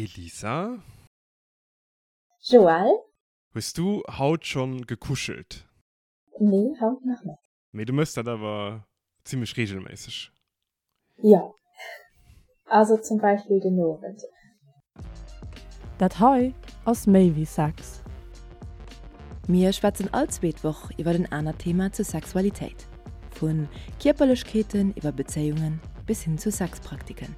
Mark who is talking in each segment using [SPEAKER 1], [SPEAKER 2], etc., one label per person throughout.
[SPEAKER 1] Elisa.
[SPEAKER 2] Joël.
[SPEAKER 1] Hues du haut schonn gekuschelt?
[SPEAKER 2] Nee, haut nach net.
[SPEAKER 1] Mee du mëss dat awer zimlech regelméisseg?
[SPEAKER 2] Jo, also zum Beispill den Owend.
[SPEAKER 3] Dat hei ass méi wéi Sex.
[SPEAKER 4] Mir schwätzen all zweet Woch iwwer en anert Thema zur Sexualitéit. Vu Kierperlechkeeten iwwer Bezéiungen bis hin zu Sexpraktiken.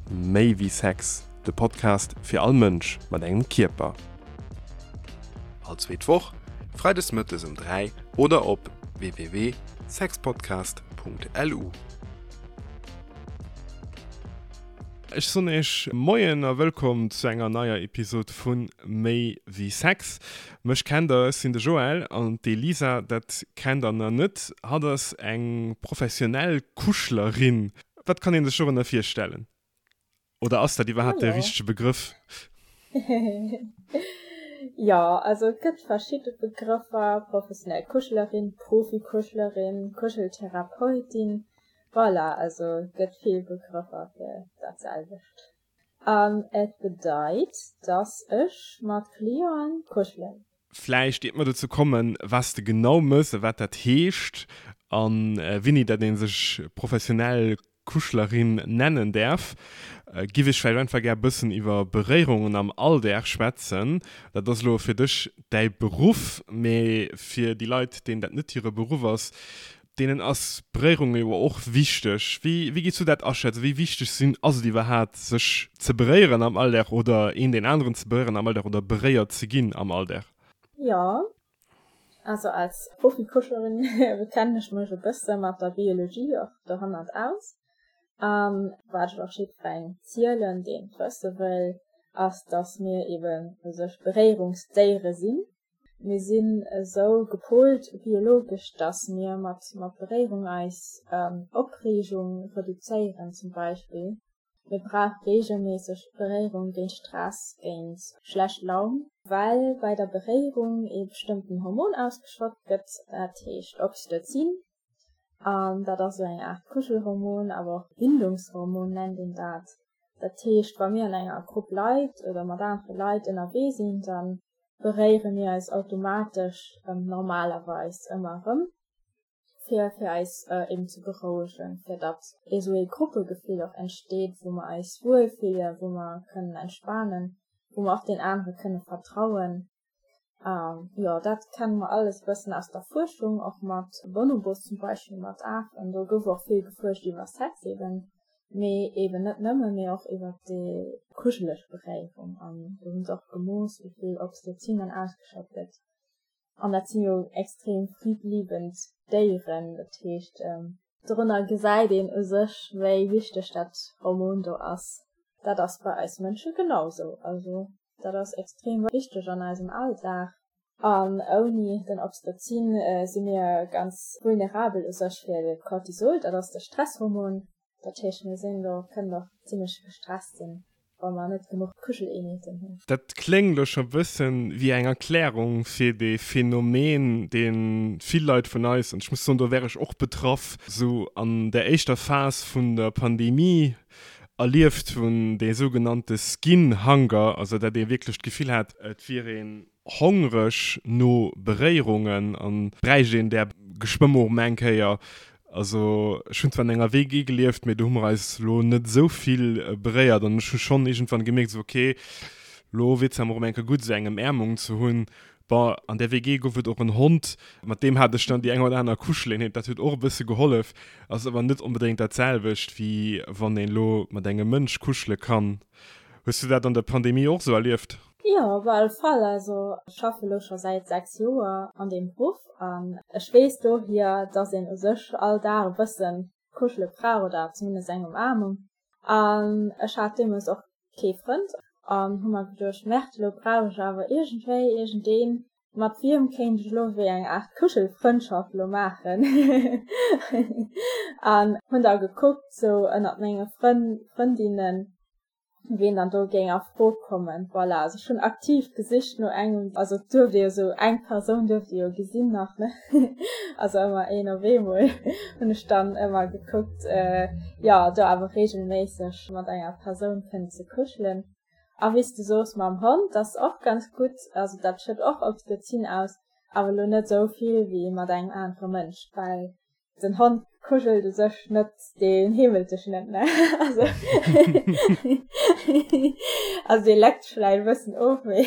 [SPEAKER 1] Méi wéi Sex, de Podcast fir all Mënsch mat engem Kierper. All zweet Woch, freides mëttes um 3 oder op www.sexpodcast.lu. Ech soen iech Moien a wëllkomm zu enger neier Episod vu Méi wéi Sex. Mech kennt der, ech sinn de Joël an d'Elisa, dat kennt der nach net. Hatt ass eng professionell Kuschlerin. Wat kann een sech dorënner virstellen? Oder ass dat iwwerhaapt de richtege Begrëff?
[SPEAKER 2] Jo, also et gëtt verschidde Begrëffer, professionell Kuschelerin, Profikuschelerin, Kuscheltherapeutin, voilà, also et gëtt vill Begrëffer fir dat selwecht. An et bedeit, dass ech mat Clienten kuschelen.
[SPEAKER 1] Vläicht, iert mer dozou kommen, wat s de genau mëss a wat dat heescht a wéini dat ee sech professionell Kuschlerin nennen däerf, giff ech vläicht einfach gär e bëssen iwwer Beréierungen am Alldag schwätzen. Dat ass elo fir dech däi Beruff, mee fir déi Leit, deenen dat net hire Beruff ass, deenen ass Beréierung jo och wichteg. Wéi wéi gees du dat aschätzen? Wéi wichteg sinn ass et iwwerhaat sech ze beréieren am Alldag oder een deen aneren ze beréieren am Alldag oder beréiert ze ginn am Alldag?
[SPEAKER 2] Jo, also als Profikuschlerin kennen ech mech e bësse mat der Biologie och dohannert aus. An wat ech och jiddwerengem zielen, deen et wësse wëll, ass, dass mir eben u sech Beréierungsdéiere sinn. Mir sinn esou gepolt biologesch, dass mir mat mat Beréierung eis Opreegung reduzéieren zum Beispill. Mir brauche reegelméisseg Beréierung géint Stress, géint schlecht Laun, well bei der Beréierung ee bestëmmten Hormon ausgeschott gëtt, dat heescht Oxytocin. An dat ass esou eng Aart Kuschelhormon, awer och Bindungshormon nennt een dat. Dat heescht, wa mir an enger Grupp Leit oder mat anere Leit ënnerwee sinn, da beréiere mir eis automatesch normalerweis ëmmer erëm, fir fir eis eben ze berouegen, fir datt esou ee Gruppegefill och entsteet, wou mer eis wuel fillen, wou mer kënnen entspanen, wou mer och deen anere kënne vertrauen. Jo, dat kenne mer alles e bëssen aus der Fuerschung, och mat Bonobos zum Beispill, mat Afen. Do gouf och vill gefuerscht iwwer Sex eben, mee eben net nëmmen, mee och iwwer déi kuscheleg Beréierung. An do hu se och gemooss, wéi vill Oxytocin dann ausgeschott gëtt. An dat si jo extrem friedliebend Déieren, dat heescht, Dorunner gesäit een u sech, wéi wichteg dat Hormon do ass. Dat ass bei eis Mënsche genau sou. Also dat ass extrem wichteg an eisem Alldag. An ouni den Oxytocin si mir ganz vulnerabel u sech fir de Cortisol, dat ass de Stresshormon. Dat heescht, mir sinn do, kënnen och zimlech gestresst sinn, wa mer net genuch Kuscheleenheeten hunn.
[SPEAKER 1] Dat kléngt elo scho bëssen wéi eng Erklärung fir dee Phänomen, dee vill Leit vun eis, an ech muss soen, do wär ech och betraff, sou an der éischter Phas vun der Pandemie erlieft hunn, dee sougenannte Skin Hunger, also dat ee wierklech d'Gefill hat, et wier een hongreg no Beréierungen an bräicht een där geschwë mol erëm eng Kéier. Also ech hunn zwar an enger WG gelieft, mee do hu mer eis lo net esou vill beréiert an ech hu schonn iergendwann gemierkt esou ok, lo wier zwar mol erëm eng Kéier gutt esou eng Ëmäermung ze hunn. Bon, an där WG gouf et och en Hond, mat deem hat ech dann déi eng oder aner Kuscheleenheet, dat huet och e bësse gehollef, ass awer net onbedéngt dat selwecht wéi wann een elo mat engem Mënsch kuschele kann. Hues du dat an der Pandemie och esou erlieft?
[SPEAKER 2] Jo, op alle Fall. Also ech schaffe lo scho säit 6 Joer an deem Beruff an ech weess dohier, dass een u sech all Dag e bëssen kuschele brauch oder zumindest eng Umaarmung. An ech hat deemools och kee Frënd an hu mer geduecht, Merde, lo brauch ech awer iergendwéi iergendeen, mat wiem kéint ech elo wéi eng Aart Kuschelfrëndschaft lo maachen. An hunn da gekuckt sou ënnert menge Frënn, Frëndinnen, ween dann do géing a Fro kommen. Voilà, also ech hunn aktiv gesicht no engem, also et duerft ee jo sou eng Persoun duerft ee jo gesinn nach, ne, also ëmmer een op eemol hunn ech dann ëmmer gekuckt, jo do awer reegelméisseg mat enger Persoun kënnen ze kuschelen. A wéi s de soos mam Hond, dat ass och ganz gutt, also dat schëtt och Oxytocin aus, awer elo net esou vill wéi mat engem anere Mënsch, well den Hond kuschelt u sech net, deen heemelt dech net, ne? Also also dee leckt vläicht e bëssen of, mee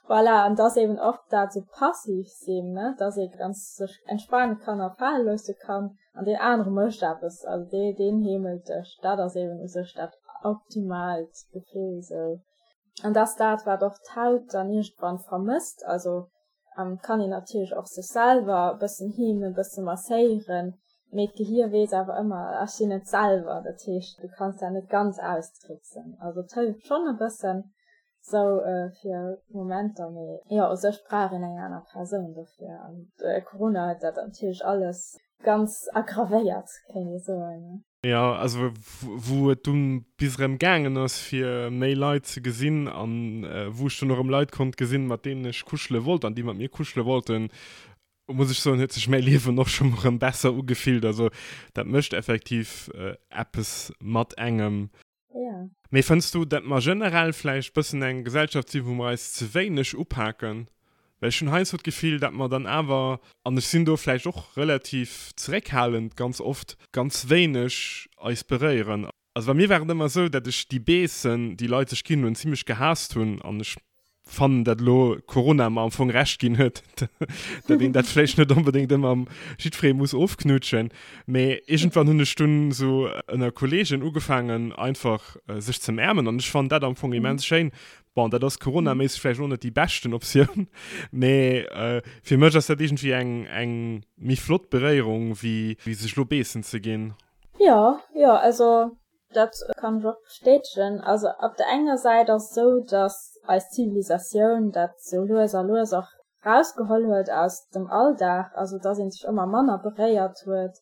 [SPEAKER 2] voilà. An dass eben och dat esou passiv sinn, ne, dass ee ganz sech entspane kann a fale loosse kann. An deen anere mécht eppes, also dee, deen heemelt dech. Dat ass eben u sech dat optimaalt Gefill esou. An dat ass dat, wat och d'Haut dann iergendwann vermësst. Also kann een natierlech och sech selwer e bëssen heemen, e bësse masséieren, mee d'Gehier weess awer ëmmer, ech sinn et selwer. Dat heescht, du kanns dat net ganz austricksen. Also et hëlleft schonn e bëssen, Sou fir Momenter, mee jo, u sech brauch een eng aner Persoun dofir. An Corona huet dat natierlech alles ganz aggravéiert, kéint ee soen.
[SPEAKER 1] Jo, also wou et dunn bis erëm gaangen ass fir méi Leit ze gesinn an wou ech dunn och erëm Leit konnt gesinn, mat deenen ech kuschele wollt an déi mat mir kuschele wollten, muss ech soen, huet sech mäi Liewen och schonn erëm besser ugefillt. Also dat mécht effektiv eppes mat engem.
[SPEAKER 2] Ja.
[SPEAKER 1] Mee fënns du, dat mer generell vläicht bëssen eng Gesellschaft sinn, wou mer eis ze wéineg upaken? Well ech hunn heiansdo d'Gefill, dat mer dann awer, an ech sinn do vläicht och relativ zeréckhalend ganz oft, ganz wéineg eis beréieren. Also bei mir war et ëmmer esou, dat ech déi Beessen, déi Leit sech ginn hunn, zimlech gehaasst hunn an ech fannen, dat elo Corona mer am Fong Recht ginn huet, dat een dat vläicht net onbedéngt ëmmer jiddweree muss ofknutschen. Mee iergendwann hunn ech dunn esou ënner Kolleegen ugefaangen, einfach sech ze ëmäermen an ech fannen dat am Fong immens schéin. Bon, dat ass coronaméisseg vläicht och net déi beschten Optioun, mee fir mech ass dat iergendwéi eng, eng méi flott Beréierung, wéi sech elo beessen ze ginn.
[SPEAKER 2] Jo, jo, also Dat kann ech och bestätegen. Also op der enger Säit ass et esou, datt eis Zivilisatioun dat sou lues a lues och rausgeholl huet aus dem Alldag, also datt ee sech ëmmer manner beréiert huet.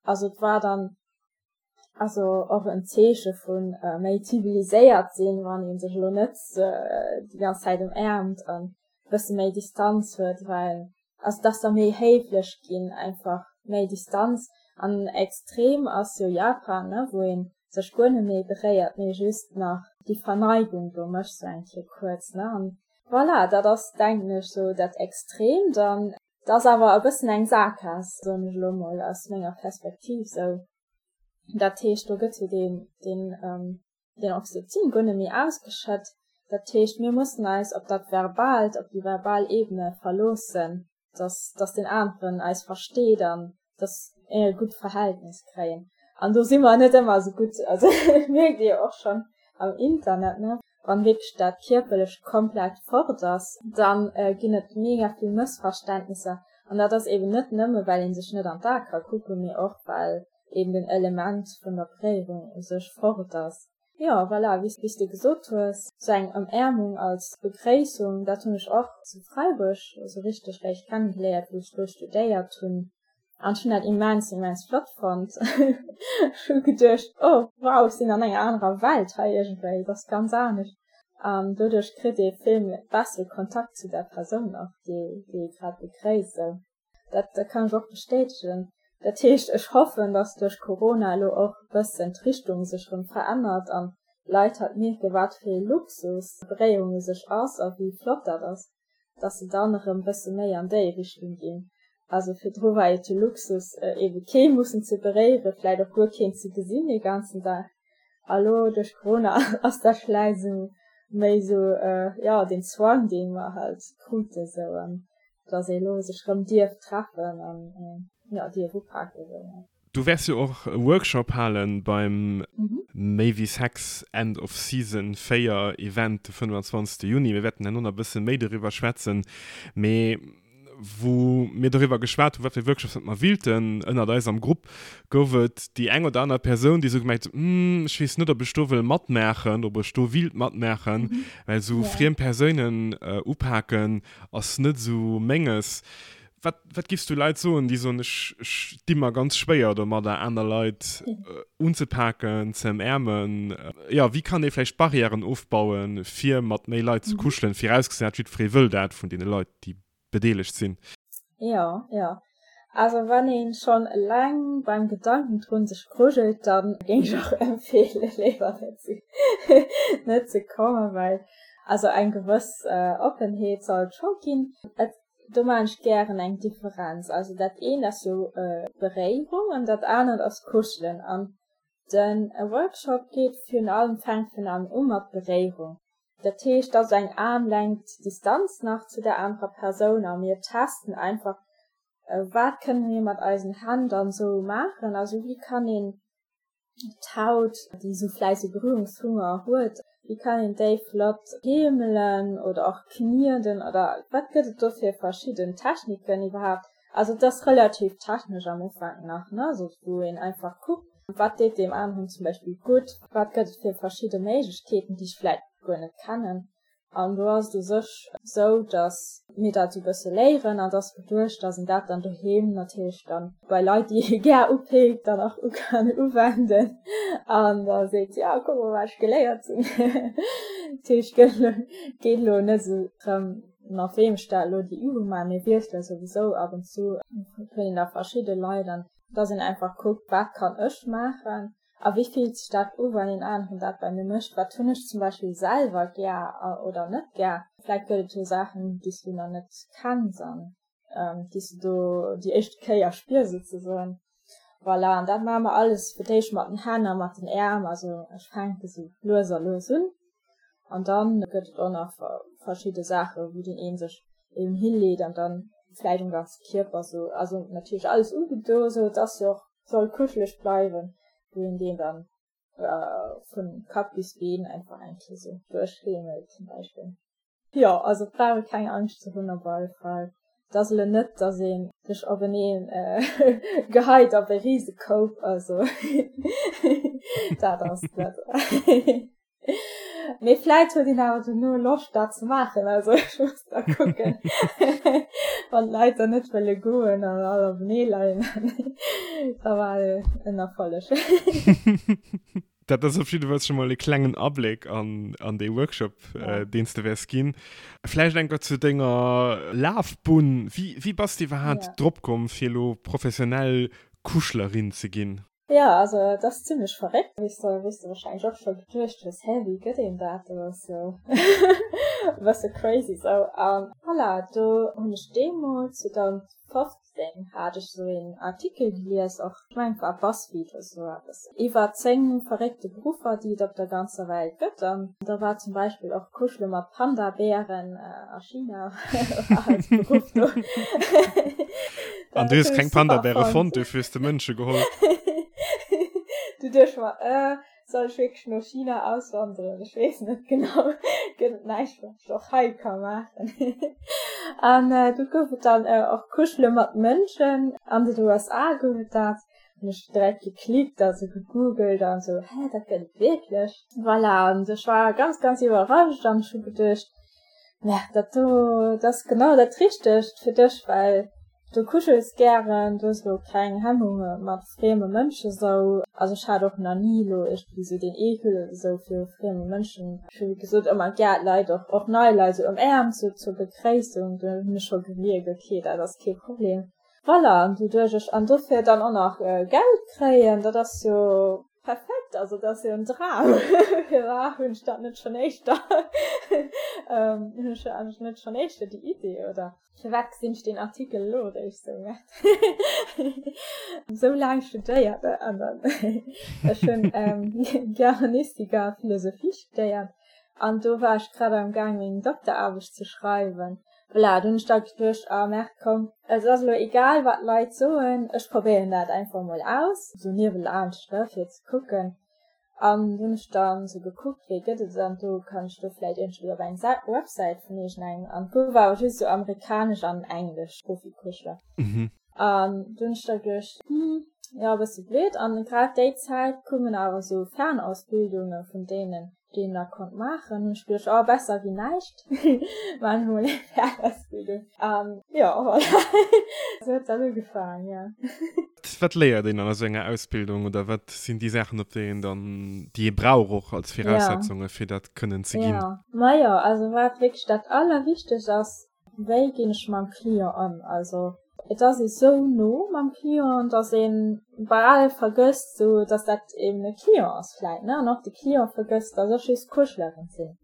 [SPEAKER 2] Also et war dann also och en Zeeche vu méi ziviliséiert sinn, wann ee sech elo net déi ganz Zäit ëmäermt an e bësse méi Distanz huet, well also dass der méi héiflech ginn, einfach méi Distanz an extrem ass jo Japan ne wou een sech guer net méi beréiert mee just nach déi Verneigung do mécht sou eng Kéier kuerz ne an voilà dat ass denken ech sou dat Extremt an et ass awer e bëssen eng Saakgaass soen ech elo mol aus menger Perspektiv sou dat heescht do gëtt jo deen deen den Oxytocin guer net méi ausgeschëtt. Dat heescht, mir mussen eis op dat Verbaalt, op déi verbal Ebene verloossen, dass, dass deen aneren eis versteet an dass mir e gutt Verhältnis kréien. An do si mer net ëmmer esou gutt. Also dat mierkt Dir jo och schonn am Internet, ne? Wann wierklech dat Kierperlecht komplett fort ass, da ginn et mega vill Mëssverständnisser. An dat ass eben net nëmme well ee sech net an d'Ae ka kucken, mee och well eben den Element vun der Beréierung u sech fort ass. Jo, voilà, wéi s de gesot hues, sou eng Ëmäermung als Begréissung, dat hunn ech och zu Freiburg sou richteg réischt kennegeléiert, wou ech do studéiert hunn. An ech hunn dat immens, immens flott fonnt. Ech hu geduecht, oh wow, ech sinn an enger anerer Welt hei iergendwéi, et ass ganz anescht. An doduerch kritt ee vill bessere Kontakt zu der Persoun och, déi ee grad begréisst, sou. Dat kann ech och bestätegen. Dat heescht, ech hoffen, datt duerch Corona elo och e bëssen d'Richtung sech erëm verännert an d'Leit halt mierken, wat fir ee Luxus Beréierung u sech ass a wéi flott dat ass, datt se dann erëm e bësse méi an déi Richtung ginn. Also virdru war et jo Luxus, eebe kee mussen ze beréieren, vläicht och guer keen ze gesinn dee ganzen Dag. A lo duerch Corona ass dat vläicht esou méi esou, jo, deen Zwang, dee mer halt kruten esou. Dass ee lo sech rëm dierf treffen an jo dierf upaken esou.
[SPEAKER 1] Du wäers jo och e Workshop halen beim Méi wéi Sex End of Season 4 Event de 25 Juni. Mir wäerten herno nach e bësse méi doriwwer schwätzen. Mee wou mir doriwwer geschwat hunn, wat fir Workshops dat mer willten ënnert eis am Grupp, gouf et déi eng oder aner Persoun, déi esou gemengt huet, Hm, ech weess net, ob ech do wëll matmaachen, ob ech do willt matmaachen, well esou friem Persounen upaken Ass net esou menges. Wat, wat giffs du Leit soen, déi soen, ech, ech di mer ganz schwéier domadder, aner Leit unzepaken, ze ëmäermen? Jo, wéi kann ee vläicht Barrièren ofbauen, fir mat méi Leit ze kuschelen, virausgesat jiddweree wëll dat vun deene Leit, déi bedeelegt sinn?
[SPEAKER 2] Jo, jo. Also wann een schonn eleng beim Gedanken drun sech grujelt, dann géing ech och empfeelen léiwer net ze net ze kommen, well also eng gewëss Oppenheet sollt scho ginn. Et do maan ech gären eng Differenz, also dat eent ass jo Beréierung an dat anert ass Kuschelen an den Workshop geet virun allem fänkt virun allem u mat Beréierung. Dat heescht, et ass eng Aarmlängt Distanz nach zu der anerer Persoun a mir testen einfach, wat kënne mir mat eisen Hänn dann esou maachen. Also wéi kann een d'Haut, déi esou vläicht esou Berührungshunger huet, wéi kann een déi flott heemelen oder och knieden oder wat gëtt et do fir verschidden Techniken iwwerhaapt. Also et ass relativ technesch am Ufank nach, ne, also wou een einfach kuckt, wat deet deem aneren zum Beispill gutt, wat gëtt et fir verschidde Méiglechkeeten, déi ech vläit guer net kennen. An do ass et u sech esou, datt mir dat esou e bësse léieren an et ass geduecht, datt een dat dann doheem natierlech dann bei Leit, déi ee gär upeekt, dann och u kann uwenden an da seet, jo kuck mol wat ech geléiert hunn. Dat heescht, geet elo net esou drëm, Mat weem ech da elo déi Übung maachen, mir wiessele souwisou ab und zu, huet een da verschidde Leit an dass een einfach kuckt, wat kann ech maachen a wéi fillt sech dat u wann een aneren dat bei mir mécht, wat hunn ech zum Beispill selwer gär oder net gär. Vläit gëtt et jo Saachen, déi s du nach net kenns an déi s du do déi éischte Kéier spiers souzesoen. Voilà, an dat maache mer alles fir d'éischt mat den Hänn a mat den Äerm, also ech fänke sou lues a lues un an dann gëtt et och nach verschidde Saache wou deen een sech eben hilleet an dann vläicht um ganze Kierper sou, also natierlech alles ugedo sou, et ass jo och, soll kuscheleg bleiwen, wou een deen dann vun Kapp bis Been einfach eng Kéier sou duerchheemelt zum Beispill. Jo, also et brauch ee keng Angscht ze hunn op alle Fall. Et ass elo net, datt ee sech openeen geheit op e Risekoup, also dat ass net. Mee vläit huet een awer dono Loscht dat ze maachen, also ech muss da kucken, wann d'Leit dann net wëlle goen an all openee leien, da war en Erfolleg.
[SPEAKER 1] Dat ass op jidde Fall scho mol e klengen Abléck an, an dee Workshop, ja. äh, deen s de wäers ginn. Vläicht enker zu denger Lafbunn. Wéi, wéi bass de iwwerhaapt ja. drop komm, fir elo professionell Kuschlerin ze ginn?
[SPEAKER 2] Ja, also et ass zimmlech verréckt, wéi s de, wéi s de wahrscheinlech och scho geduecht hues, hä, wéi gëtt een dat? Dat ass jo e bësse crazy sou. An voilà, do hunn ech deemools 2015, 2018 hat ech esou een Artikel gelies, och ech mengen et war Buzzfeed oder sou eppes, iwwer 10 verréckte Beruffer déi et op der ganzer Welt gëtt an da war zum Beispill och Kuschele mat Panda-Bären a China war als Beruff do.
[SPEAKER 1] An du hues keng Panda-Bäre fonnt, dofir hues de Mënsche geholl?
[SPEAKER 2] Du duecht mer, äh, Soll ech wierklech no China auswanderen? Ech weess net genau. Gëtt et näischt, wat ech och hei ka maachen? An do gouf et dann och Kuschele mat Mënschen. An den USA gouf et dat. Hunn ech direkt geklickt, also gegoogelt an esou, hä, dat gëtt et wierklech? Voilà, an ech war ganz, ganz iwwerrascht an ech hu geduecht, Merde, dat do, dat ass genau dat Richtegt fir dech, well Du kuschels gären, du hues elo keng Hemmunge mat frieme Mënsche sou. Also ech hat och nach ni elo iergendwéi sou deen Eekel oder sou viru frieme Mënschen. Ech hu wéi gesot ëmmer gär d'Leit och, och nei Leit sou ëmäermt sou zur Begréissung. Do hunn ech scho gemierkt, ok dat ass kee Problem. Voilà, an doduerch ech an dofir dann och nach Geld kréien, dat ass jo perfekt, also dat ass jo en Dram. Firwat hunn ech dat net schonn éischter, hunn ech eigentlech net schonn éischter déi Idee oder? Firwat gesinn ech deen Artikel elo eréischt sou? Sou laang studéiert an dann ech hunn Germanistik a Philosophie studéiert an do war ech grad am Gaang meng Dokteraarbecht ze schreiwen. Voilà, do hunn ech da geduecht, ah merde komm, et ass elo egal wat d'Leit soen, ech probéieren dat einfach mol aus, sou niewelaanscht ne fir ze kucken. An du hunn ech dann sou gekuckt, wéi gëtt et an do kann ech do vläit iergendwéi op eng Websäit vun iergendengem an do war awer just sou amerikanesch an englesch Profikuschler. An du hunn ech da geduecht, hm, jo e bësse blöd. An grad déi Zäit koumen awer sou Fernausbildunge vun deenen, déi een da konnt maachen. Hunn ech geduecht, oh besser wéi näischt, maachen ech mol eng Fernausbildung. An jo, voilà, sou huet dat ugefaangen, jo.
[SPEAKER 1] Wat léiert een an esou enger Ausbildung oder wat sinn déi Saachen, op déi een dann, déi ee brauch och als Viraussetzunge fir dat kënnen ze ginn?
[SPEAKER 2] Ja, majo, also wat wierklech dat Allerwichtegst ass, wéi ginn ech mam Client ëm? Also. Et ass ee sou no mam Client, dass ee bal vergësst, sou dass dat eben e Client ass vläit, ne, an och de Client vergësst, dass ech just Kuschelerin sinn.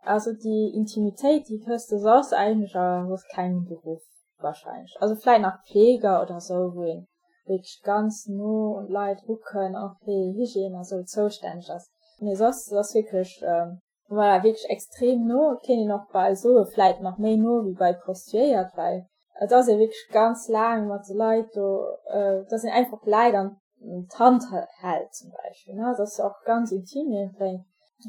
[SPEAKER 2] Also déi Intimitéit, déi hues de soss eigentlech a soss kengem Beruff wahrscheinlech. Also vläit nach Pfleger oder sou, wou een wierklech ganz no un d'Leit erukënn, och fir Hygiène a sou zoustänneg ass. Mee soss ass wierklech Voilà, wierklech extrem no. Et kéint een och bal soen, vläit nach méi no wéi bei Prostituéiert, well et ass ee wierklech ganz laang mat de Leit do, dass een einfach d'Leit an d'Hand hält zum Beispill, ne. Dat ass jo och ganz intim iergendwéi.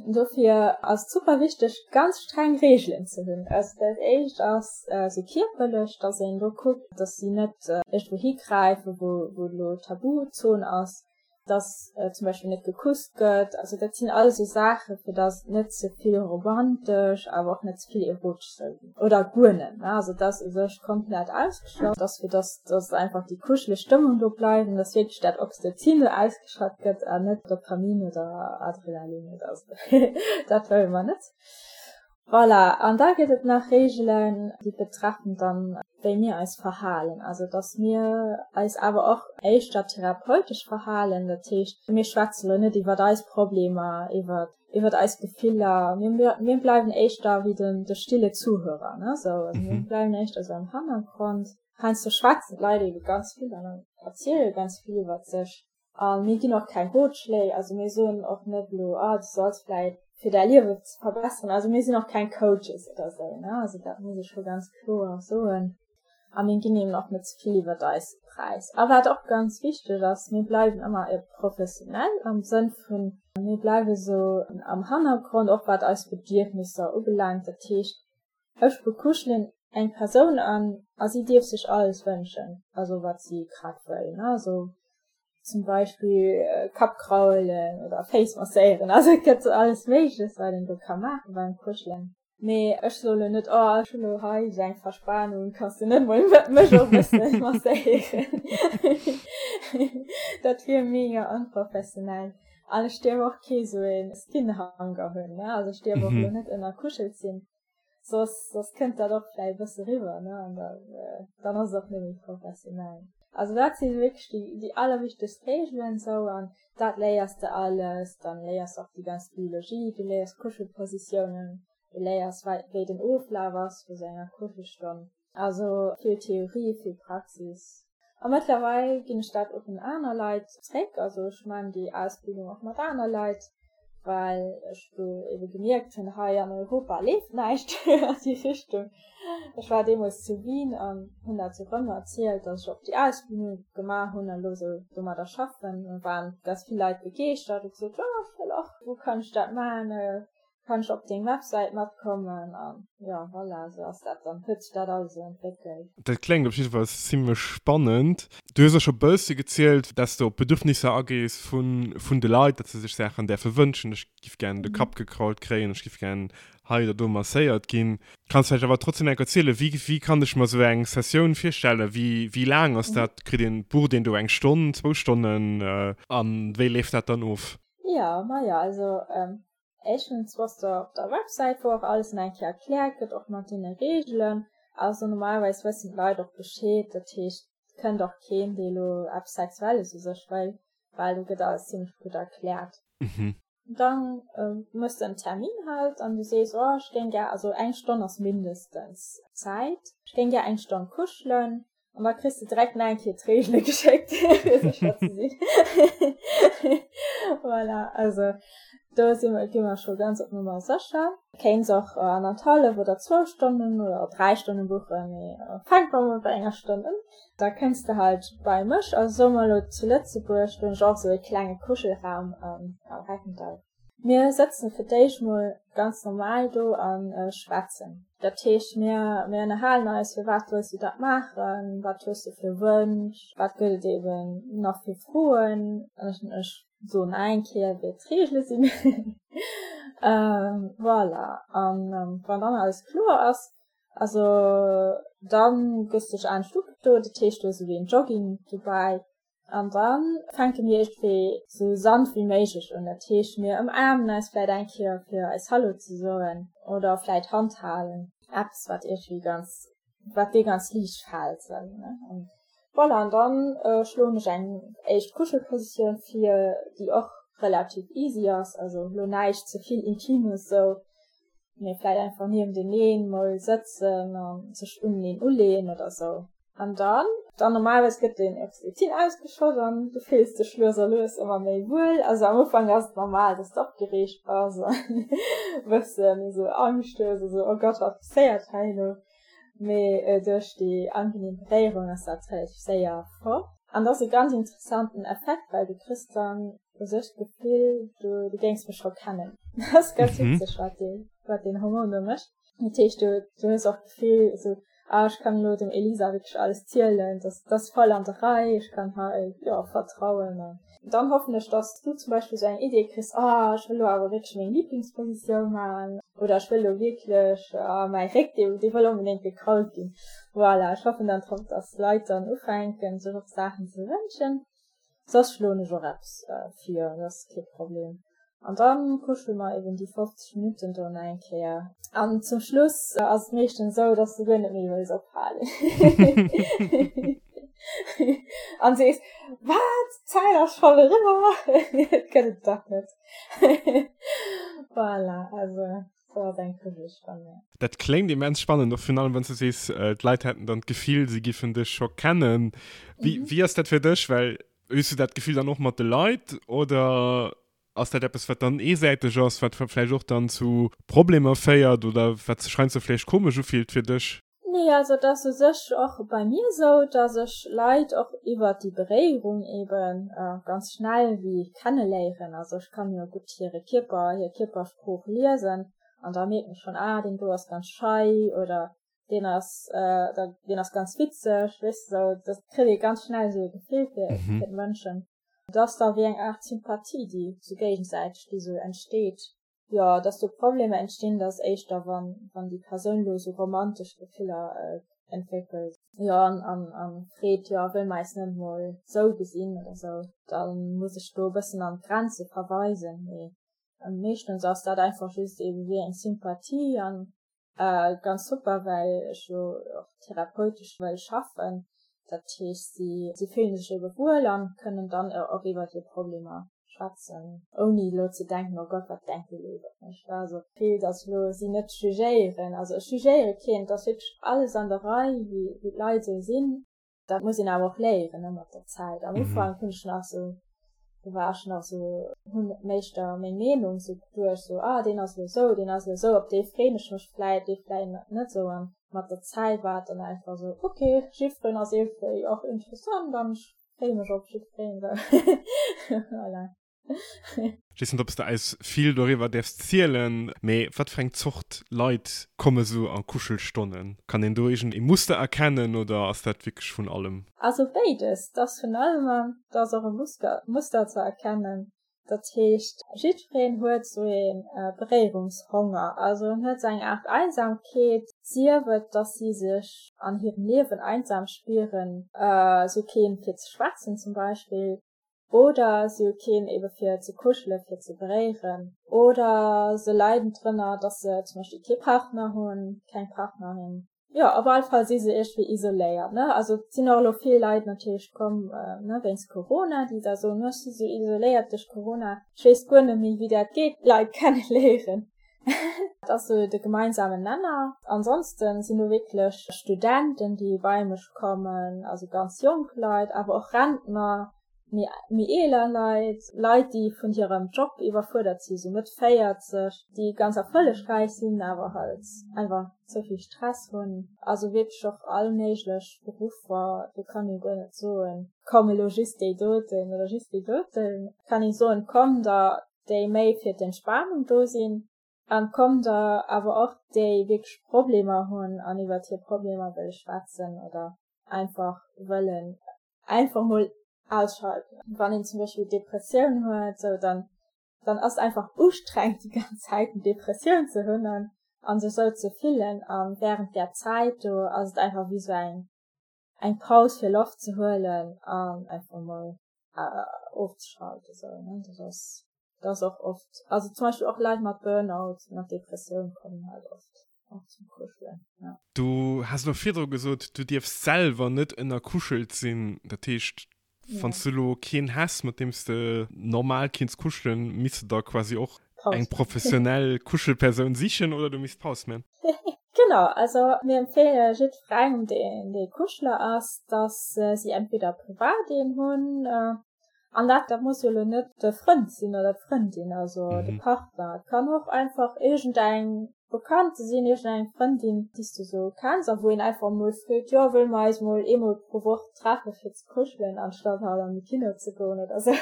[SPEAKER 2] Dofir ass et super wichteg, ganz streng Reegelen ze hunn. Also dat éischt ass esou kierperlech, dass een do kuckt, dass si net iergendwou higräifen, wou elo Tabuzon ass. dass zum Beispill net gekusst gëtt. Also dat sinn alles esou Saachen, fir dass et net ze vill romantesch, awer och net ze vill erotesch soll ginn. Oder guer net, ne? Also et ass u sech komplett ausgeschloss, dass fir dass dass einfach déi kuscheleg Stëmmung do bleift an dass wierklech dat Oxytocin do ausgeschat gëtt an net Dopamin oder Adrenalin oder esou. Dat wëlle mer net. Voilà, an da gëtt et nach Reegelen, déi betreffen dann, wéi mir eis verhalen. Also dass mir eis awer och éischter therapeutesch verhalen. Dat heescht, mir schwätze lo net iwwert eis Problemer, iwwert iwwert eis Gefiller. Mir mir bleiwen éischter wéi den de stille Zuhörer, ne, sou. Also mir bleiwen éischter sou am Hannergrond. Heiansdo schwätzen d'Leit ebe ganz vill an erziele ganz vill iwwert sech. A mir ginn och keng Rotschléi, also mir soen och net elo, ah du solls vläit fir däi Liewe ze verbesseren, also mir sinn och keng Coaches oder esou, ne, also dat muss ech scho ganz kloer soen. A mir ginn eben och net ze vill iwwert eis Präis. A wat och ganz wichteg ass, mir bleiwen ëmmer professionell am Sënn vun, mir bleiwe sou am Hannergrond, och wat eis Bedierfnisser ubelaangt. Dat heescht, ech bekuschelen eng Persoun an a si dierf sech alles wënschen, also wat si grad wëll, ne, also zum Beispill Kapp kraulen oder Féiss masséieren, also et gëtt alles Méigleches, wat een do ka maache beim Kuschelen. Mee ech soe lo net, oh ech hunn lo hei esou eng Verspanung, kanns du net mol mech och e bësse masséieren? Dat wier mega onprofessionell. An ech dierf och kee sou e Skinhanger hunn, ne, also ech dierf och lo net ënnerkuschelt sinn. Soss, soss kënnt dat och vläicht e bësse riwwer, ne? An da, dann ass et och net méi professionell. Also dat si wierklech déi, déi allerwichtegst Reegelen esou an dat léiers de alles. Dann léiers de och déi ganz Biologie, du léiers Kuschelpositiounen, du léiers wei, wéi den Oflaf ass vu sou enger Kuschelstonn. Also vill Theorie, vill Praxis. A mëttlerweil ginn ech dat och un aner Leit zréck. Also ech man déi Ausbildung och mat aner Leit, well ech do ebe gemierkt hunn, hei an Europa leeft näischt an déi Richtung. Ech war deemools zu Wien an hunn dat sou rëm erzielt, datt ech och déi Ausbildung gemaach hunn an elo sou domadder schaffen. Da waren ganz vill Leit begeeschtert a gesot, jo ech wëll och, wou kann ech dat man? Kann ech op deng Websäit matkommen an jo voilà, sou ass dat dann, huet sech dat alles esou entwéckelt.
[SPEAKER 1] Dat kléngt op jidde Fall zimlech spannend. Du hues och scho bëssi gezielt, dass de op d'Bedürfnisser agees vun vun de Leit, dass se sech Saachen däerfe wënschen, ech giff gären de Kapp gekrault kréien, ech giff gären hei oder do masséiert ginn. Kanns vläicht awer trotzdem enk erzielen, wéi wéi kann ech mer sou eng Sessioun virstellen, wéi wéi laang ass dat, kritt een, bucht een do eng Stonn, zwou Stonnen an wéi leeft dat dann of?
[SPEAKER 2] Jo, majo, also éischtens bass de op der Websäit, wou och alles nach eng Kéier erkläert gëtt, och mat deene Reegelen. Also normalerweis wëssen d'Leit och Bescheed, dat heescht, et kënnt och keen, dee elo eppes Sexuelles u sech wëll, well do gëtt alles zimmlech gutt erkläert. Dann méchs de en Termin halt an du sees, oh ech géing gär, also eng Stonn ass mindestens Zäit, ech géing gär eng Stonn kuschelen, An da kriss de direkt nach eng Kéier d'Reegele geschéckt, fir sécher ze sinn. Voilà, also do si mer, gi mer scho ganz op Nummer sécher. Kéints och annerthallef oder zwou Stonnen oder dräi Stonne buchen, mee fänk mer mol bei enger Stonn un. Da kënns de halt bei mech, also soe mer elo zu Lëtzebuerg, do hunn ech och esou e klenge Kuschelraum am Reckendall. Mir sëtzen fir d'éischt mol ganz normal do a schwätzen. Dat heescht, mir mir ënnerhalen eis, firwat wëlls du dat maachen, wat hues du fir Wënsch, wat gëtt et eben nach fir Froen. Ech soen nach eng Kéier, wéi d'Reegele sinn. Voilà, an wann dann alles kloer ass, also dann gëss dech anescht ugedo, dat heescht, do ass esou wéi en Jogging dobäi, An dann fänke mir iergendwéi sou sanft wéi méiglech un. Dat heescht, mir ëmaarmen eis vläit eng Kéier fir eis Hallo ze soen oder vläit Hand halen. Eppes wat iergendwéi ganz. Wat dir ganz liicht fält sou ne. An voilà, an dann schloen ech eng éischt Kuschelpositioun vir, déi och relativ easy ass, also lo näischt ze vill Intimes sou, mee vläit einfach nienteneen mol sëtzen a sech uneneen uleeën oder sou. An dann, dann normalerweis gëtt den Oxytocin ausgeschott an du fills dech lues a lues ëmmer méi wuel. Also am Ufank ass et normal, dass de opgereegt bass an e bëssen esou Angscht hues, esou oh Gott, wat passéiert hei elo? Mee duerch déi angenehm Beréierung ass dat relativ séier fort. An dat ass e ganz interessanten Effekt, well du kriss dann u sech d'Gefill, du, du géings mech scho kennen. Dat ass ganz witzeg, wat dee, wat deen Hormon do mécht. Dat heescht, du, du hues och d'Gefill, esou, ah, ech kann elo dem Elisa wierklech alles zielen, dat, dat ass voll an der Rei, ech kann hei, jo, vertrauen. An dann hoffen ech, dass du zum Beispill esou eng Idee kriss, ah, ech wëll elo awer wierklech meng Lieblingspositioun maachen oder ech wëll elo wierklech, ah, mäi Réck, dee, dee wëll onbedéngt gekrault ginn. Voilà, ech hoffen dann drop, dass d'Leit dann ufänken, sech och Saachen ze wënschen. Soss schloen ech och eppes vir, dat ass kee Problem. An dann kuschele mer eben déi 50 Minutten do nach eng Kéier. An zum Schluss ass et meeschtens esou, dass du guer net méi wëlls ophalen. An sees, Wat? D'Zäit ass schonn eriwwer? Dat gëtt et dach net. Voilà, also sou ass eng Kuschelstonn, jo.
[SPEAKER 1] Dat kléngt immens spannend, och virun allem wann s du sees, d'Leit hätten dann d'Gefill, si giffen dech scho kennen. Wéi, wéi ass dat fir dech? Well hues du dat Gefill dann och mat de Leit oder ass dat eppes, wat dann eesäiteg ass, wat vläicht och dann zu Problemer féiert oder wat sech heiansdo vläicht komesch ufillt fir dech?
[SPEAKER 2] Nee, also et ass u sech och bei mir esou, dass ech Leit och iwwert déi Beréierung eben ganz schnell wéi kenneléieren. Also ech kann jo gutt hire Kierper, hir Kierpersprooch liesen an da mierken ech schonn, ah deen do ass ganz schei oder deen ass deen ass ganz witzeg, weess de sou. Dat kritt ee ganz schnell esou e Gefill fir fir d'Mënschen. Et ass da wéi eng Aart Sympathie, déi sou géigesäiteg, déi sou entsteet. Jo, dass do Problemer entstinn, dat ass éischter, wann, wann déi Persoun elo sou romantesch Gefiller entwéckelt, jo, an, an, an freet, jo, wëll mer eis net mol sou gesinn oder sou, da muss ech do e bëssen an d'Grenze verweisen. Mee meeschtens ass dat einfach just ebe wéi eng Sympathie an Ganz super, well ech jo och therapeutesch wëll schaffen. Dat heescht, si, si fillen sech ebe wuel an kënnen dann och iwwer hir Problemer schwätzen, ouni elo ze denken, oh Gott, wat denkt déi elo iwwer mech. Also vill, datt elo si net jugéieren. Also ech jugéiere keen, et ass wierklech alles an der Rei, wéi, wéi d'Leit esou sinn. Dat muss een awer och léieren, ne, mat der Zäit. Am Ufank hunn ech nach sou, do war ech nach sou, hunn éischter meng Meenung sou geduecht, sou, ah, deen ass elo sou, deen ass elo sou, op dee freeën ech mech vläit, dee vläit net sou. An mat der Zäit war et dann einfach sou, ok, jiddwereen ass iergendwéi och interessant an ech freeë mech op jiddwereen, sou. Voilà.
[SPEAKER 1] Ech weess net, ob s de eis vill doriwwer däerfs zielen, mee wat fir eng Zort Leit komme sou a Kuschelstonnen? Kann een do iergend ee Muster erkennen oder ass dat wierklech vun allem?
[SPEAKER 2] Also béides, 't ass vun allem an 't ass och e Muster ze erkennen. Dat heescht, jiddwereen huet sou ee Beréierungshonger, also en huet sou eng Aart Einsamkeet, sief et, dass si sech an hirem Liewen einsam spieren, sou keen fir ze schwätzen zum Beispill, Oder si hu keen ebe fir ze kuschelen, fir ze beréieren. Oder se leiden drënner, dass se zum Beispill kee Partner hunn, keng Partnerin. Jo, op alle Fall si se iergendwéi isoléiert, ne. Also et sinn och elo vill Leit natierlech komm, ne, wéinst Corona, déi da soen, ech si sou isoléiert duerch Corona, ech weess guer net méi, wéi dat geet, Leit kenneléieren. Dat ass sou de gemeinsamen Nenner. Ansonsten sinn do wierklech Studenten, déi bei mech kommen, also ganz jonk Leit, awer och Rentner, méi, méi eeler Leit, Leit, déi vun hirem Job iwwerfuerdert sinn, sou Mëtt 40, déi ganz erfollegräich sinn, awer halt einfach ze vill Stress hunn. Also wierklech och all méiglech Beruffer, do kann ee guer net soen, komm elo just déi doten oder just déi doten. Kann ee soen, komm da déi méi fir d'Entspanung do sinn, an kommen der awer och déi wierklech Problemer hunn an iwwert hir Problemer wëlle schwätzen oder einfach wëllen einfach mol ausschalten. Wann een zum Beispill Depressioun huet, sou dann dann ass et einfach ustrengend déi ganz Zäit eng Depressioun ze hunn an an sech sou ze fillen an während där Zäit do ass et einfach wéi sou eng eng Paus fir Loft ze huelen an einfach mol ofzeschalten sou ne dat ass dat ass och oft also zum Beispill och Leit mat Burnout mat Depressioun kommen halt oft. Och zum Kuschelen, ja.
[SPEAKER 1] Du has elo virdru gesot, du dierfs selwer net ënnerkuschelt sinn. Dat heescht, wann s du elo keen häss, mat deem s de normal kinns kuschelen, misst de der quasi och eng professionell Kuschelpersoun sichen oder du misst Paus man?
[SPEAKER 2] Genau, also mir empfeele jiddwerengem, deen dee Kuschler ass, dass si entweder privat een hunn, An dat, dat muss jo elo net de Frënd sinn oder d'Frëndin, also de Partner. Et kann och einfach iergendeng Bekannte sinn, iergendeng Frëndin, déi s du sou kenns a wou een einfach emol freet, jo, wëlle mer eis mol eemol pro Woch treffe fir ze kuschelen, anstatt halt an de Kino ze goen oder sou.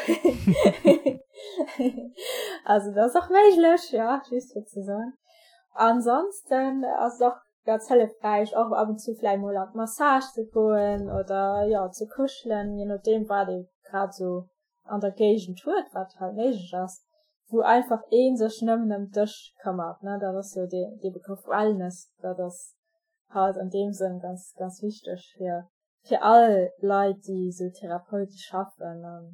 [SPEAKER 2] Also dat ass och méiglech, jo, just fir ze soen. Ansonsten ass et och ganz hëllefräich och ab und zu vläicht mol an d'Massage ze goen oder jo ze kuschelen, je nodeem wat ee grad sou an der Géigend huet, wat halt méiglech ass, wou einfach ee sech nëmmen ëm dech këmmert, ne, dat ass jo dee dee Begrëff Wellness, dat ass halt an deem Sënn ganz ganz wichteg fir fir all Leit déi sou therapeutesch schaffen an.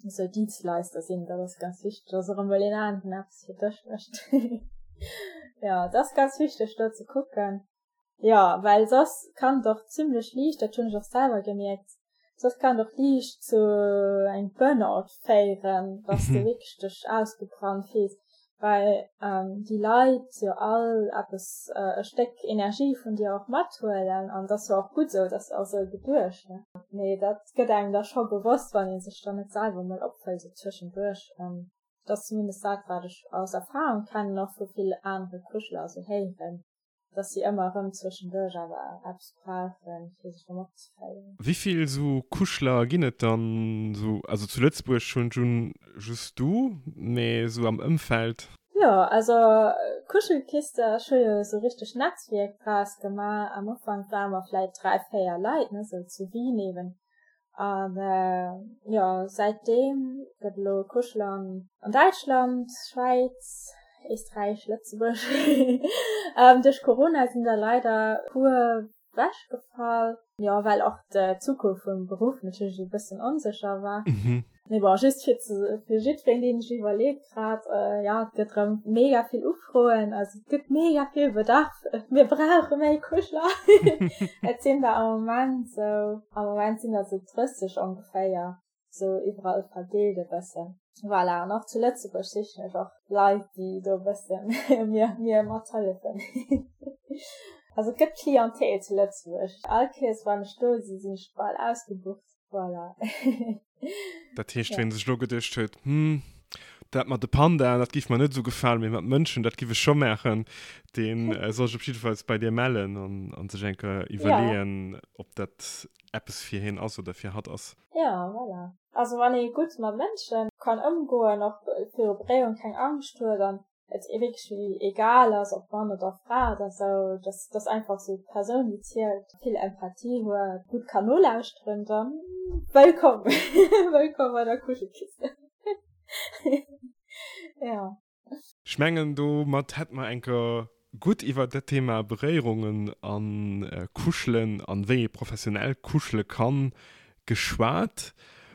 [SPEAKER 2] Esou Dienstleister sinn, dat ass ganz wichteg, dass och emol een aneren eppes fir dech mécht. Jo, dat ass ganz wichteg do ze kucken. Jo, well soss kann et och zimlech liicht, dat hunn ech och selwer gemierkt, soss kann et och liicht zu engem Burnout féieren, dass de wierklech dech ausgebrannt fills. Well déi Leit jo all eppes, e Stéck Energie vun dir och mathuelen an dat ass jo och gutt esou, dat ass och esou geduecht, ne? Mee dat gëtt engem da scho bewosst, wann ee sech dann net selwer emol opfëllt esou zwëschenduerch. Dat ass zumindest dat, wat ech aus Erfahrung kennen, och vu vill anere Kuschler esou héieren. dass si ëmmer erëm zwëschenduerch awer eppes brauchen, fir sech erëm opzeféieren.
[SPEAKER 1] Wéi vill esou Kuschler ginn et dann esou? Also zu Lëtzebuerg hunn ech un just du, mee esou am Ëmfeld?
[SPEAKER 2] Jo, also Kuschelkiste, ech hu jo esou richteg Netzwierk draus gemaach. Am Ufank ware mer vläit 3, 4 Leit, ne, esou zu Wien eben. An jo, säitdeem gëtt elo Kuscheln an Däitschland, Schwäiz, Éisträich, Lëtzebuerg. Duerch Corona sinn der leider puer wechgefall, jo well och d'Zukunft vum Beruff natierlech e bëssen onsécher war. Mee bon, just fir ze, fir jiddwereen deen sech iwwerleet grad, jo et gëtt rëm mega vill Ufroen, also et gëtt mega vill Bedarf, mir brauche méi Kuschler. Et sinn der am Moment sou, am Moment sinn der sou 30 ongeféier, sou iwwerall verdeelt e bëssen. Voilà, an och zu Lëtzebuerg sichen ech och Leit, déi do e bëssen mir, mir mathëllefen. Also et gëtt Clientèle zu Lëtzebuerg. All Kéiers wann ech do sinn, sinn ech bal ausgebucht. Voilà.
[SPEAKER 1] Dat heescht, wien sech elo geduecht huet, Hm, dat mat de Pandaen, dat giff mer net esou gefalen, mee mat Mënschen, dat giff ech scho maachen, dee soll sech op jiddefalls bei dir mellen an sech eng Kéier iwwerleeën, ob dat eppes fir hien ass oder fir hatt ass.
[SPEAKER 2] Ja, voilà. Also wann ee gutt mat Mënsche kann ëmgoen, och viru Beréierung keng Angscht huet an et wierklech wéi egal ass, ob Mann oder Fra oder sou, dass dass einfach sou d'Persoun déi zielt vill Empathie huet, gutt kann nolauschteren, dann wëllkomm, wëllkomm bei der Kuschelkiste. Ja.
[SPEAKER 1] Ech mengen domat hätt mer enker gutt iwwert dat Thema Beréierungen an Kuschelen an wéi ee professionell kuschele kann geschwat.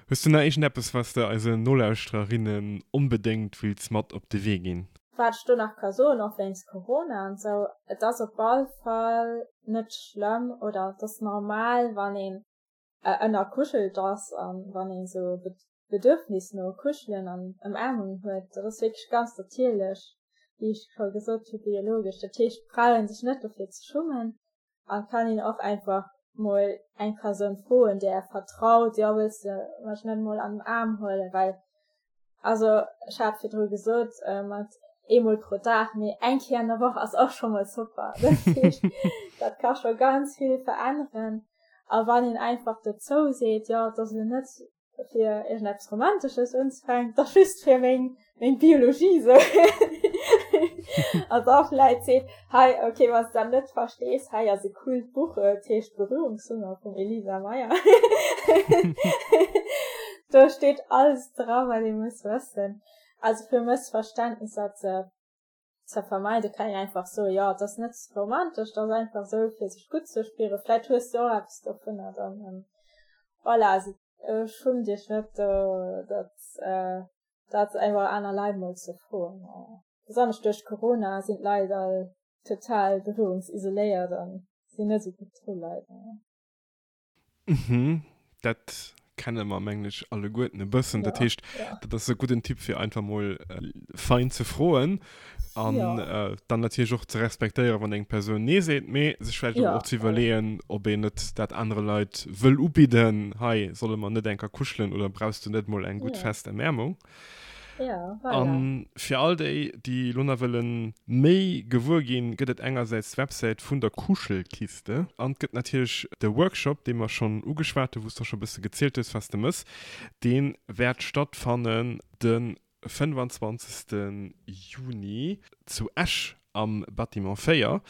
[SPEAKER 1] Hues du nach iergendeppes, wat s de eisen Nolauschtererinnen onbedéngt wills mat op de Wee ginn?
[SPEAKER 2] Wat ech do nach ka soen, och wéinst Corona an esou, et ass op all Fall net schlëmm oder et ass normal, wann een ënnerkuschelt ass an wann een esou e Bedürfnis no Kuschelen an Ëmaarmung huet. Dat ass wierklech ganz natierlech, wéi ech scho gesot hu, biologesch. Dat heescht, et brauch ee sech net dofir ze schummen. An kann een och einfach mol eng Persoun froen, där ee vertraut, jo wëlls de mech net mol an den Aarm huelen, well also ech hat virdru gesot mat eemol pro Dag, mee eng Kéier an der Woch ass och scho mol super. Dat heescht, dat ka scho ganz vill veränneren. A wann een einfach dozou seet, jo et ass elo net fir iergendeppes Romantesches unzefänken, da just fir meng, meng Biologie sou. An da vläit seet, hei, okay, wann s de dat net verstees, hei ass e coolt Buch, et heescht Berührungshunger vum Elisa Meyer. Do steet alles dra, wat ee muss wëssen. Also fir Mëssverständnisser ze ze vermeiden, kann een einfach soen, jo, et ass net romantesch, et ass einfach esou, fir sech gutt ze spieren. Vläit hues de och eppes dovunner dann. Voilà, also schummt iech net do, dat, dat einfach aner Leit mol ze froen. Besonnesch duerch Corona sinn d'Leit all. total berührungsisoléiert an sinn net esou gutt dru leider.
[SPEAKER 1] Mhm, dat kenne mer mengen ech alleguerten e bëssen. Dat heescht, dat ass e gudden Tipp fir einfach mol fein ze froen an dann natierlech och ze respektéieren, wann eng Persoun nee seet, mee sech vläicht awer och ze iwwerleeën, ob een net dat anere Leit wëll ubidden, hei, solle mer net eng Kéier kuschelen oder brauchs du net mol eng gutt fest Ëmäermung?
[SPEAKER 2] Ja, voilà.
[SPEAKER 1] An fir all déi, déi elo nach wëlle méi gewuer ginn, gëtt et engersäits d'Websäit vun der Kuschelkiste an et gëtt natierlech de Workshop, dee mer schonn ugeschwat hunn, wou s de och scho e bësse gezielt hues, wat s de mëss. Dee wäert stattfannen de 25. Juni zu Esch am Bâtiment 4.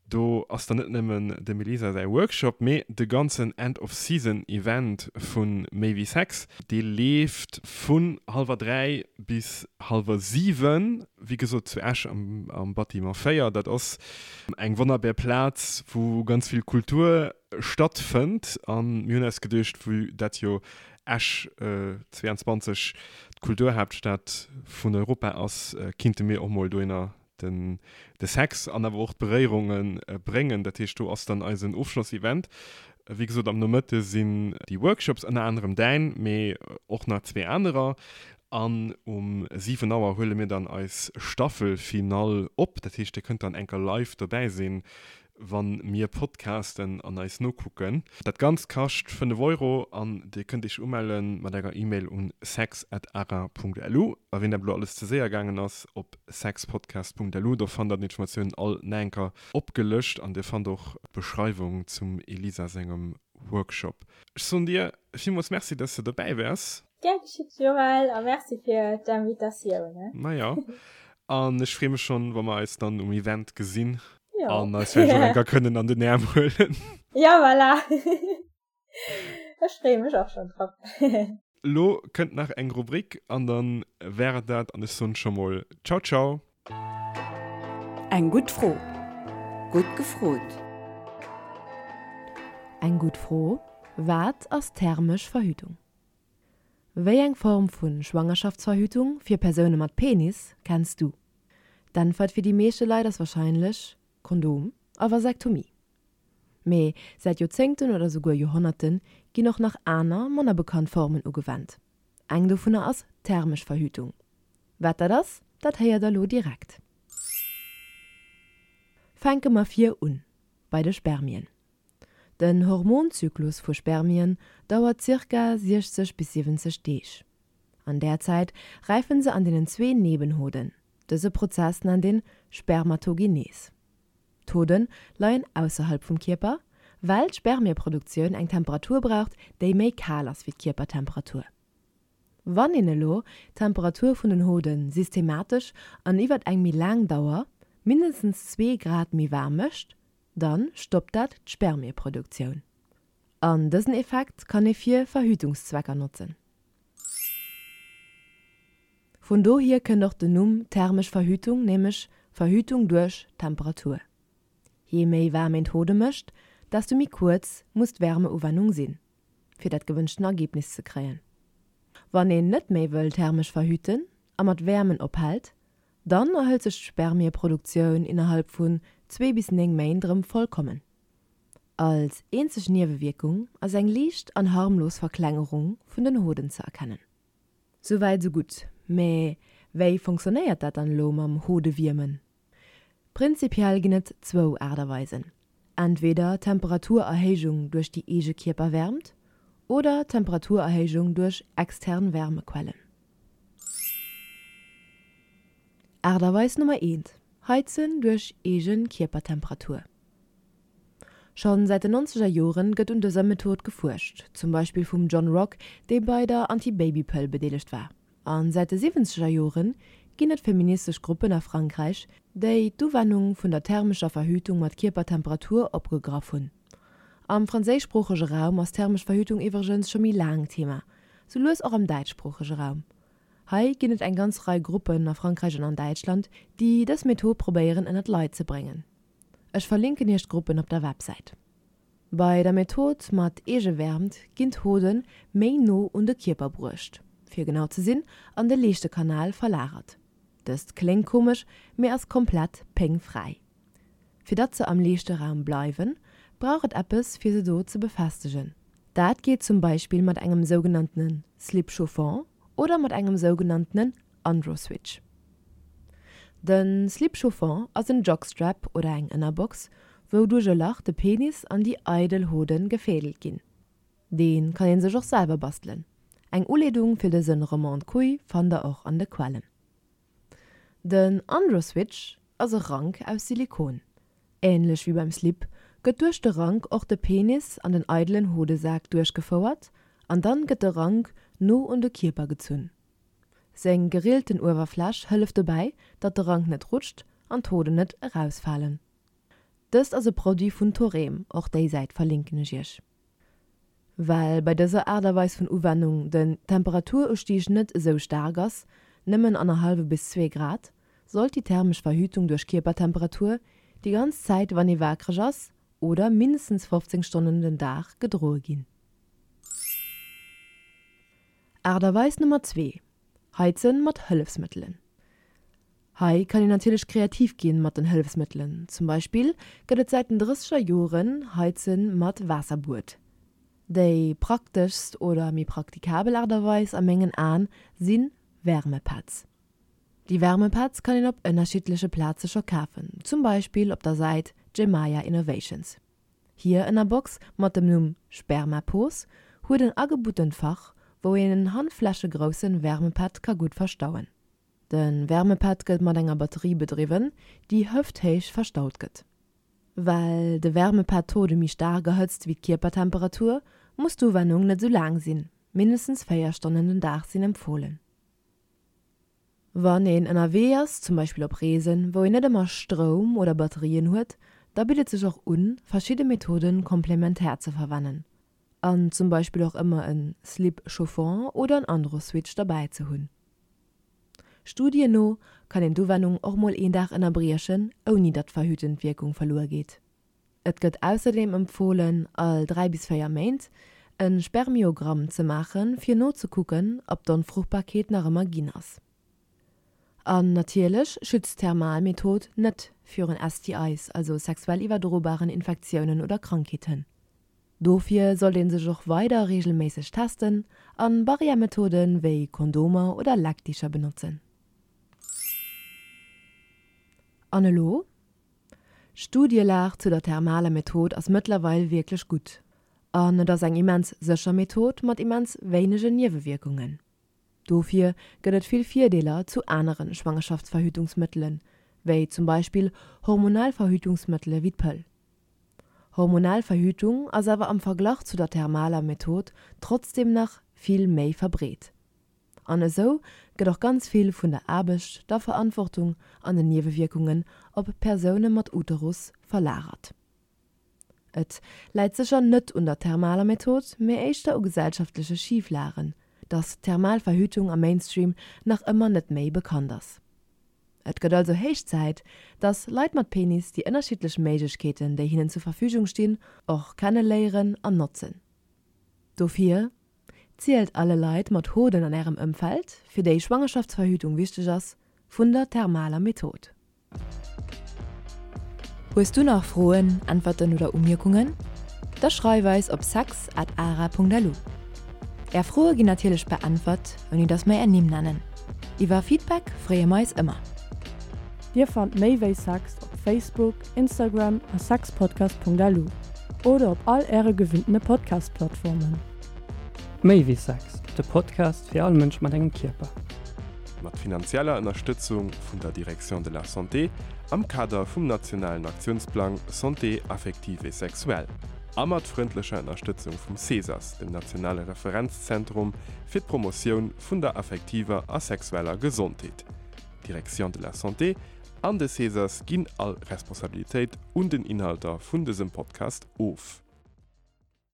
[SPEAKER 1] Do ass dann net nëmmen dem Elisa säi Workshop, mee de ganzen End of Season Event vu Méi wéi Sex. Dee leeft vun hallwer 3 bis hallwer 7, wéi gesot zu Esch am Bâtiment 4. Dat ass eng wonnerbär Plaz, wou ganz vill Kultur stattfënnt. A mir hunn eis geduecht, vue dat jo Esch 22 d'Kulturhaaptstad vun Europa ass, kinnte mir och mol dohinner den de Sex an awer och d'Beréierunge bréngen. Dat heescht, do ass dann eisen Ofschlossevent. Wéi gesot, am Nomëtte sinn déi Workshops, ënner anerem däin, mee och nach zwee anerer. An um 7 Auer huele mir dann eis Staffelfinall op. Dat heescht, dir kënnt dann enker live dobäi sinn, wann mir podcasten an eis nokucken. Dat Ganzt kascht 5 Euro an dir kënnt iech umellen mat enger E-Mail un sex@ara.lu. A ween dat elo alles ze séier gaangen ass, op sexpodcast.lu, do fannt der d'Informatiounen all naenker opgelëscht an dir fannt och d'Beschreiwung zum Elisa sengem Workshop. Ech soen dir villmools Merci, dass de dobäi waars.
[SPEAKER 2] Gär geschitt Joël a Merci fir d'Invitatioun.
[SPEAKER 1] Majo, an ech free mech schonn, wa mer eis dann um Event gesinn. Jo. An eis vläicht och eng Kéier kënnen an den Äerm huelen.
[SPEAKER 2] Ja, voilà. Ech freeë mech och schonn drop.
[SPEAKER 1] Lo kënnt nach eng Rubrik an dann wär et dat an ech soen scho mol Ciao ciao.
[SPEAKER 4] Eng gutt Fro. Gutt gefrot. Eng gutt Fro, Wat ass thermesch Verhütung? Wéi eng Form vu Schwangerschaftsverhütung fir Persoune mat Penis kenns du? D'Äntwert fir déi meeschte Leit ass warscheinlech Kondom a Vasektomie. Mee säit Joerzéngten oder souguer Joerhonnerte ginn och nach aner, manner bekannt Formen ugewennt. Eng dovunner ass thermesch Verhütung. Wat dat ass, dat héiert der lo direkt. Fänke mer vir un, bei de Spermien. Den Hormonzyklus vu Spermien dauert zirka 60 bis 70 Deeg. An där Zäit räifen se an deenen zwee Nebenhoden. Dëse Prozess nennt een Spermatogenes. D'Hoden leien ausserhalb vum Kierper, well d'Spermieproduktioun eng Temperatur braucht, déi méi kal ass wéi d'Kierpertemperatur. Wann een elo d'Temperatur vun den Hoden systematesch an iwwert eng méi laang Dauer mindestens zwee Grad méi waarm mécht, Dann stoppt dat d'Spermieproduktioun. An dësen Effekt kann ee fir Verhütungszwecker notzen. Vun dohier kënnt och den Numm thermesch Verhütung, nämlech Verhütung duerch Temperatur. Jee méi waarm een d'Hode mécht, desto méi kuerz muss d'Wärmeuwennung sinn, fir dat gewënschten Ergebnis ze kréien. Wann een net méi wëll thermesch verhüten a mat Wäermen ophält, Dann erhëlt sech d'Spermieproduktioun innerhalb vun zwee bis 9 Méint erëm vollkommen. Als eenzeg Niewewierkung ass eng liicht an harmlos Verklengerung vun den Hoden ze erkennen. Souwäit sou gutt, mä wéi fonctionnéiert dat dann elo mam Hodewiermen? Prinzipiell ginn et zwou Aart a Weisen, entweder Temperaturerhéijung duerch déi eege Kierperwärmt oder Temperaturerhéijung duerch extern Wärmequellen. Aart a Weis Nummer eent, Heizen duerch eege Kierpertemperatur. Schonn säit den nonzeger Joren gëtt un dëser Method gefuerscht, zum Beispill vum John Rock, dee bei der Anti-Baby-Pëll bedeelegt war. An säit de siwwenzeger Jore ginn et feministesch Gruppen a Frankräich, déi d'Uwennung vun der thermescher Verhütung mat Kierpertemperatur opgegraff hunn. Am franséischsproochege Raum ass thermesch Verhütung iwwregens scho méi laang Thema, sou lues och am däitschsproochege Raum. Hei ginn et eng ganz Rei Gruppen a Frankräich an an Däitschland, déi dës Method probéieren ënnert d'Leit ze bréngen. Ech verlinken iech d'Gruppen op der Websäit. Bei der Method mat Eegewäermt ginn d'Hode méi no un de Kierper bruecht, fir genau ze sinn, an de Leeschtekanal verlagert. Dëst kléngt komesch, mee ass komplett péngfräi. Fir datt se am Leeschteraum bleiwen, brauch et eppes fir se do ze befestegen. Dat geet zum Beispill mat engem sougenanntene Slip chauffant oder mat engem sougenanntenen Androswitch. De Slip chauffant ass en Jockstrap oder eng Ënnerbox, wou duerch e Lach de Penis an déi eidel Hoden gefädelt ginn. Dee kann een sech och selwer bastelen. Eng Uleedung fir dësen Roman de Couille fannt der och an de Quellen. Den Androswitch ass e Rank aus Silikon. Änlech wéi beim Slip gëtt duerch de Rank och de Penis an den eidelen Hodesak duerchgefouert an dann gëtt de Rank no un de Kierper gezunn. Seng gerillten Uewerfläch hëlleft dobäi, datt de Rank net rutscht an d'Hoden net erausfalen. Dëst ass e Produit vun Thorem, och déi Säit verlinken ech iech. Well bei dëser Aart a Weis vun Uwennung den Temperaturusstieg net esou staark ass, nëmmen annerhallwe bis zwee Grad, sollt déi thermesch Verhütung duerch Kierpertemperatur déi ganz Zäit wann ee waakreg ass oder mindestens 15 Stonnen den Dag gedroe ginn. Aart a Weis Nummer zwee, Heizen mat Hëllefsmëttelen. Hei kann een natierlech kreativ ginn mat den Hëllefsmëttelen. Zum Beispill gëtt et säit den drësseger Joren Heizen mat Waasserbuet. Déi prakteschst oder méi praktikabel Aart a Weis a mengen Aen si Wärmepads. Déi Wärmepads kann een op ënnerschiddleche Plaze scho kafen, zum Beispill op der Säit Gemaya Innovations. Hir Ënnerbox mat dem Numm Spermapos huet en agebuttent Fach, wou een en handflächegroussen Wärmepad ka gutt verstauen. De Wärmepad gëtt mat enger Batterie bedriwwen, déi hëfthéich verstaut gëtt. Well de Wärmepad d'Hode méi staark erhëtzt wéi d'Kierpertemperatur, muss d'Uwennung net sou laang sinn, mindestens 4 Stonnen den Dag sinn empfohlen. Wann een ënnerwee ass, zum Beispill op Reesen, wou een net ëmmer Stroum oder Batterien huet, da bitt et sech och un, verschidde Methoden komplementär ze verwennen an zum Beispill och ëmmer en Slip chauffant oder en Androswitch derbäi ze hunn. Studien no kann een d'Uwennung och mol een Dag ënnerbriechen, ouni datt d'verhütend Wierkung verluer geet. Et gëtt ausserdeem empfohlen, all 3 bis 4 Méint e Spermiogramm ze maachen, fir nozekucken, ob d'Onfruchtbarkeet nach ëmmer ginn ass. An natierlech schützt d'Thermalmethod net virun STIs, also sexuell iwwerdrobaren Infektiounen oder Krankheeten. Dofir sollt een sech och weider reegelméisseg testen an Barrière-Methoden wéi Kondomer oder Leckdicher benotzen. An elo? D'Studielag zu der thermaler Method ass mëttlerweil wierklech gutt an et ass eng immens sécher Method mat immens wéinegen Niewewierkungen. Dofir gëtt et vill Virdeeler zu anere Schwangerschaftsverhütungsmëttelen, wéi zum Beispill hormonell Verhütungsmëttele wéi d'Pëll. Hormonell Verhütung ass awer am Verglach zu der thermaler Method trotzdem nach vill méi verbreet. An esou gëtt och ganz vill vun der Aarbecht, der Verantwortung an den Niewewierkungen op Persoune mat Uterus verlagert. Et läit sécher net un der thermaler Method, mee éischter u gesellschaftleche Schiflagen, dass thermal Verhütung am Mainstream nach ëmmer net méi bekannt ass. Et gëtt also héich Zäit, dass Leit mat Penis déi ënnerschiddlech Méiglechkeeten, déi hinnen zur Verfügung stinn, och kenne léieren an notzen. Dofir, zielt alle Leit mat Hoden an ärem Ëmfeld, fir déi Schwangerschaftsverhütung wichteg ass, vun der thermaler Method. Hues du nach Froen, Äntwerten oder Umierkungen? Da schreif eis op sex at ara.lu. Är Froe ginn natierlech beäntwert, ouni dass mer är Nimm nennen. Iwwer Feedback freeë mer eis ëmmer.
[SPEAKER 3] Dir fannt méi wéi Sex op Facebook, Instagram a sexpodcast.lu oder op all äre gewinntene Podcast-Plattformen.
[SPEAKER 5] Méi wéi Sex, de Podcast fir all Mënsch mat engem Kierper.
[SPEAKER 1] Mat finanzieller Ënnerstëtzung vun der Direction de la Santé am Kader vum nationalen Aktiounsplang Santé affective et sexuelle a mat frëndlecher Ënnerstëtzung vum CESAS, dem nationale Referenzzentrum fir d'Promotioun vun der affektiver a sexueller Gesondheet. D'Direction de la Santé an de CESAS ginn all Responsabilitéit un den Inhalter vun dësem Podcast of.